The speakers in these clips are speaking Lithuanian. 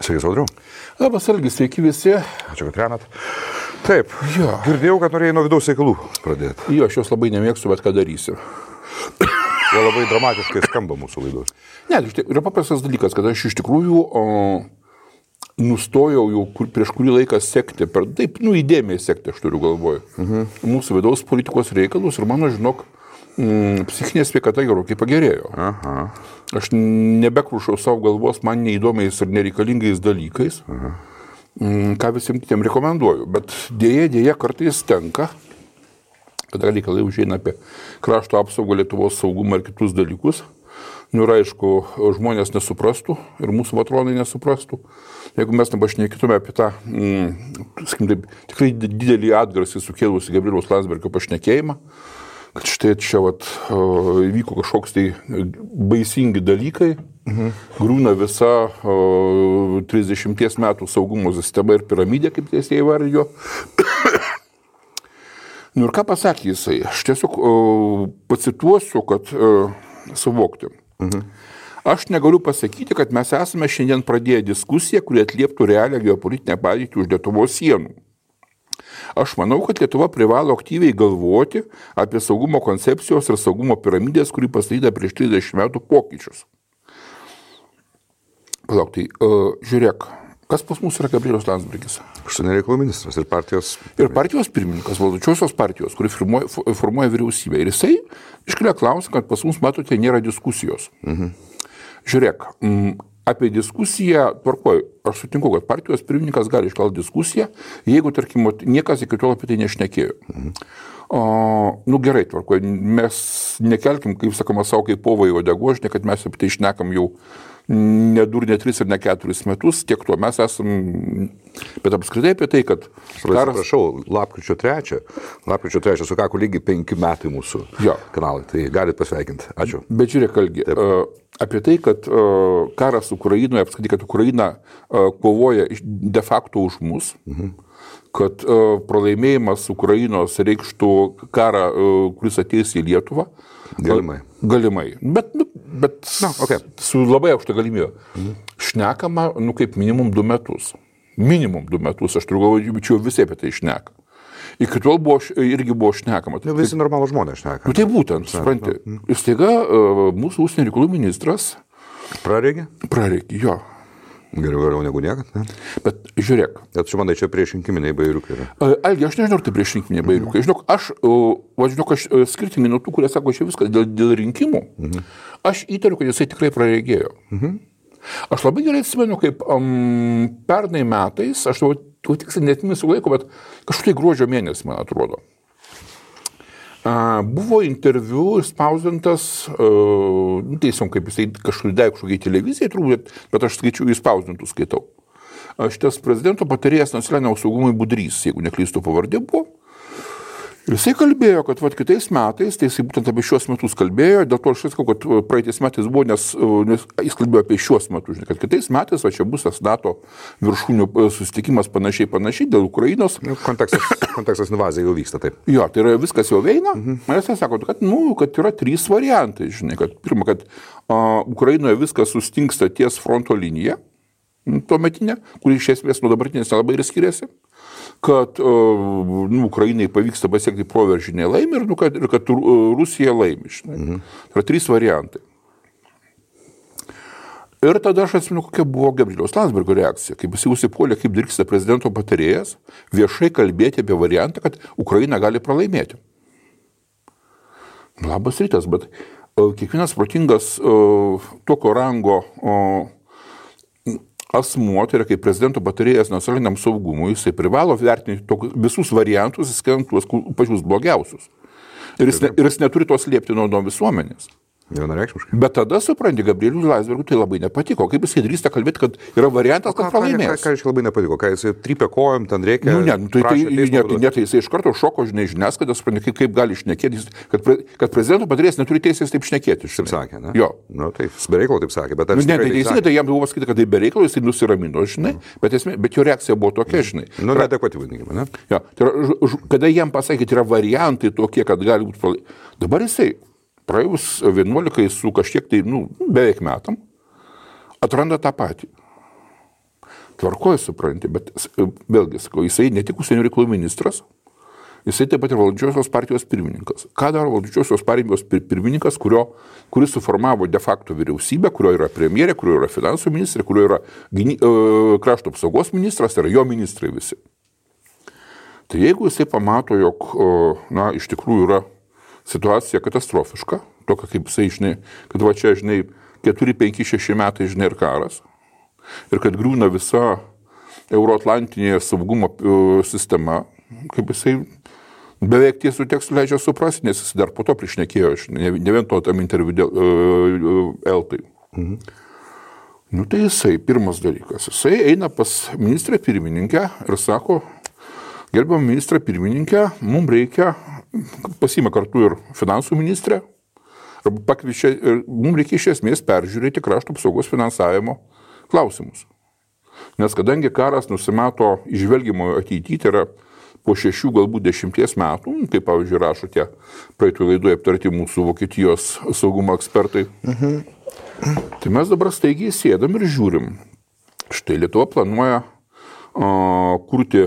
Sveiki, Audriau. Labas, Algi, sveiki visi. Ačiū, kad remat. Taip, girdėjau, kad norėjai nuo vidaus reikalų pradėti. Jo, aš jos labai nemėgstu, bet ką darysiu. Jo labai dramatiškai skamba mūsų laidos. Ne, yra paprastas dalykas, kad aš iš tikrųjų nustojau jau prieš kurį laiką sekti, taip, įdėmiai sekti, aš turiu galvoje, mūsų vidaus politikos reikalus ir mano, žinok, psichinė sveikata gerokai pagerėjo. Aha. Aš nebekrušau savo galvos man neįdomiais ir nereikalingais dalykais, ką visiems kitiem rekomenduoju. Bet dėja kartais tenka, kada reikalai užeina apie krašto apsaugą, Lietuvos saugumą ir kitus dalykus. Ir aišku, žmonės nesuprastų ir mūsų patronai nesuprastų. Jeigu mes nepašnekėtume apie tą, tikrai didelį atgarsį sukėlusi Gabrieliaus Landsbergio pašnekėjimą, kad štai čia įvyko kažkoks tai baisingi dalykai, griūna visa 30 metų saugumo sistema ir piramidė, kaip tiesiai įvardijo. Ir ką pasakė jisai? Aš tiesiog pacituosiu, kad suvokti. Aš negaliu pasakyti, kad mes esame šiandien pradėję diskusiją, kuri atlieptų realią geopolitinę padėtį už Lietuvos sienų. Aš manau, kad Lietuva privalo aktyviai galvoti apie saugumo koncepcijos ir saugumo piramidės, kuri pastatyta prieš 30 metų pokyčius. Palauk, tai žiūrėk, kas pas mus yra Gabrielius Landsbergis? Užsienio reikalų ministras ir partijos... Ir partijos pirmininkas, valdančiosios partijos, kuri formuoja vyriausybę. Ir jisai iškelia klausimą, kad pas mus, matote, nėra diskusijos. Žiūrėk, apie diskusiją, tvarkoj, aš sutinku, kad partijos pirmininkas gali iškelti diskusiją, jeigu, tarkim, niekas iki tol apie tai nešnekėjo. Gerai, tvarkoj, mes nekelkim, kaip sakoma, savo kaip povai uodegožinė, kad mes apie tai šnekam jau ne 2, ne 3 ir ne 4 metus, tiek to mes esam, bet apskritai apie tai, kad... Prašau, lapkričio 3 sukako lygiai 5 metai mūsų kanalai, tai galit pasveikinti. Ačiū. Bet žiūrėk, Algi, apie tai, kad karas Ukrainoje, apskritai, kad Ukraina kovoja de facto už mus, kad pralaimėjimas Ukrainos reikštų karą, kuris ateis į Lietuvą. Galimai. Bet su labai aukšta galimybė. Šnekama, kaip minimum 2 metus. Minimum 2 metus, aš turiu galvoju, čia visi apie tai šneka. Iki tol irgi buvo šnekama. Visi normalų žmonės šneka. Tai būtent, supranti. Ir staiga mūsų užsienio reikalų ministras... Praregė, jo. Geriau negu niekad, ne? Bet žiūrėk. Bet čia manai, čia priešrinkiminiai bairiukai yra. Algi, aš nežinau, ar tai priešrinkiminiai bairiukai. Žinok, aš skirtingai nuo tų, kurie sako, čia viskas dėl rinkimų, aš įtariu, kad jisai tikrai praregėjo. Aš labai gerai atsimenu, kaip pernai metais, aš tiksliai neatsimenu laiko, bet kažkaip gruodžio mėnesį, man atrodo. Buvo interviu išspausdintas, teisom, kaip jisai kažkokiai televizijai turbūt, bet aš skaičiu, išspausdintų skaitau. Šitas prezidento patarėjas nacionaliniam saugumui Budrys, jeigu neklystu pavardė buvo. Ir jisai kalbėjo, kad kitais metais, tai jisai būtent apie šios metus kalbėjo, dėl to aš sakau, kad praeitais metais buvo, nes jis kalbėjo apie šios metus, kad kitais metais čia bus tas NATO viršūnių susitikimas panašiai dėl Ukrainos. Kontekstas invazija jau vyksta, taip. Jo, tai yra viskas jau veina. Jisai sako, kad yra 3 variantai, kad pirma, kad Ukrainoje viskas sustingsta ties fronto linija, tuometinė, kuri iš esmės nuo dabartinės nelabai ir skiriasi, kad Ukrainai pavyksta pasiekti proveržinę laimę ir kad Rusija laimi. Tai yra 3 variantai. Ir tada aš atsimenu, kokia buvo Gabrieliaus Landsbergio reakcija, kaip jis užsipuolė, kaip dirksta prezidento patarėjas, viešai kalbėti apie variantą, kad Ukraina gali pralaimėti. Labas rytas, bet kiekvienas protingas tokio rango asmuo, tai yra kaip prezidento patarėjas nacionaliniam saugumui, jisai privalo vertinti visus variantus, įskaitant tuos pačius blogiausius. Ir jis neturi to slėpti nuo visuomenės. Vienareikšmiškai. Bet tada, supranti, Gabrieliui Landsbergiui tai labai nepatiko. Kaip jisai drįsta kalbėti, kad yra variantas, kad pralaimės. Ką labai nepatiko? Ką jisai trypė kojom, ten reikia... Tai jisai iš karto šoko, žiniasklaidą, supranti, kaip gali šnekėti, kad prezidento patarėjas neturi teisės taip šnekėti. Taip sakė, ne? Jo. Tai be reikalo taip sakė, bet... Tai jam buvo pasakyti, kad tai be reikalo, jisai nusiramino, žinai, bet jo reakcija buvo tokia, žinai. Neadekvati vadinkime, ne? Jo. Kada jam pasakė, yra variantai tokie, kad gali būti pralaimėti. Dabar jisai praėjus 11 su kažkiek tai, beveik metam, atranda tą patį. Tvarkoju, supranti, bet vėlgi, sakau, jisai ne tik užsienio reikalų ministras, jisai taip pat ir valdančiosios partijos pirmininkas. Ką daro valdančiosios partijos pirmininkas, kuris suformavo de facto vyriausybę, kurio yra premjerė, kurio yra finansų ministrė, kurio yra krašto apsaugos ministras, tai yra jo ministrai visi. Tai jeigu jisai pamato, jog, iš tikrųjų yra situacija katastrofiška, tokia kaip jisai, žinai, kad va čia, žinai, 4, 5, 6 metai, žinai, ir karas, ir kad griūna visa euroatlantinė saugumo sistema, kaip jisai beveik tiesų tekstų leidžia suprasti, nes jis dar po to priešnekėjo, ne vien to tam interviu dėl Eltai. Tai jisai, pirmas dalykas, jisai eina pas ministrę pirmininkę ir sako, gerbiamą ministrą pirmininkę, mums reikia, pasiima kartu ir finansų ministrę, pakviečia, ir mums reikia iš esmės peržiūrėti krašto apsaugos finansavimo klausimus. Nes kadangi karas nusimato išvelgimo ateityje, tai yra po 6, galbūt 10 metų, kaip pavyzdžiui rašo tie praeitų laidoje aptarti mūsų Vokietijos saugumo ekspertai, tai mes dabar staigiai sėdam ir žiūrim. Štai Lietuva planuoja kurti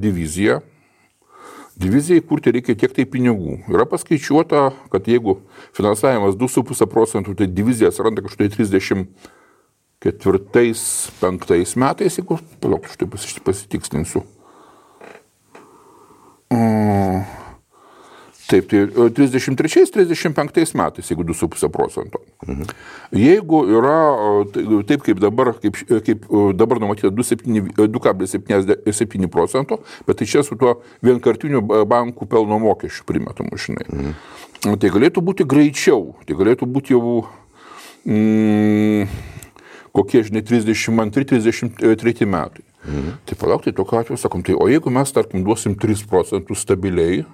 diviziją. Divizijai kurti reikia tiek tai pinigų. Yra paskaičiuota, kad jeigu finansavimas 2,5 procentų, tai divizija atsiranda kažkai 34-35 metais, jeigu, palauk, štai pasitikslinsiu. Taip, tai 33-35 metais, jeigu 2,5 procento. Jeigu yra taip, kaip dabar numatyta 2,77 procento, bet tai čia su tuo vienkartiniu bankų pelno mokesčiu primetamu, žinai. Tai galėtų būti greičiau, tai galėtų būti jau kokie, žinai, 32-33 metai. Tai palauk, tai tokiu atveju sakom, tai o jeigu mes, tarkim, duosim 3 procentus stabiliai,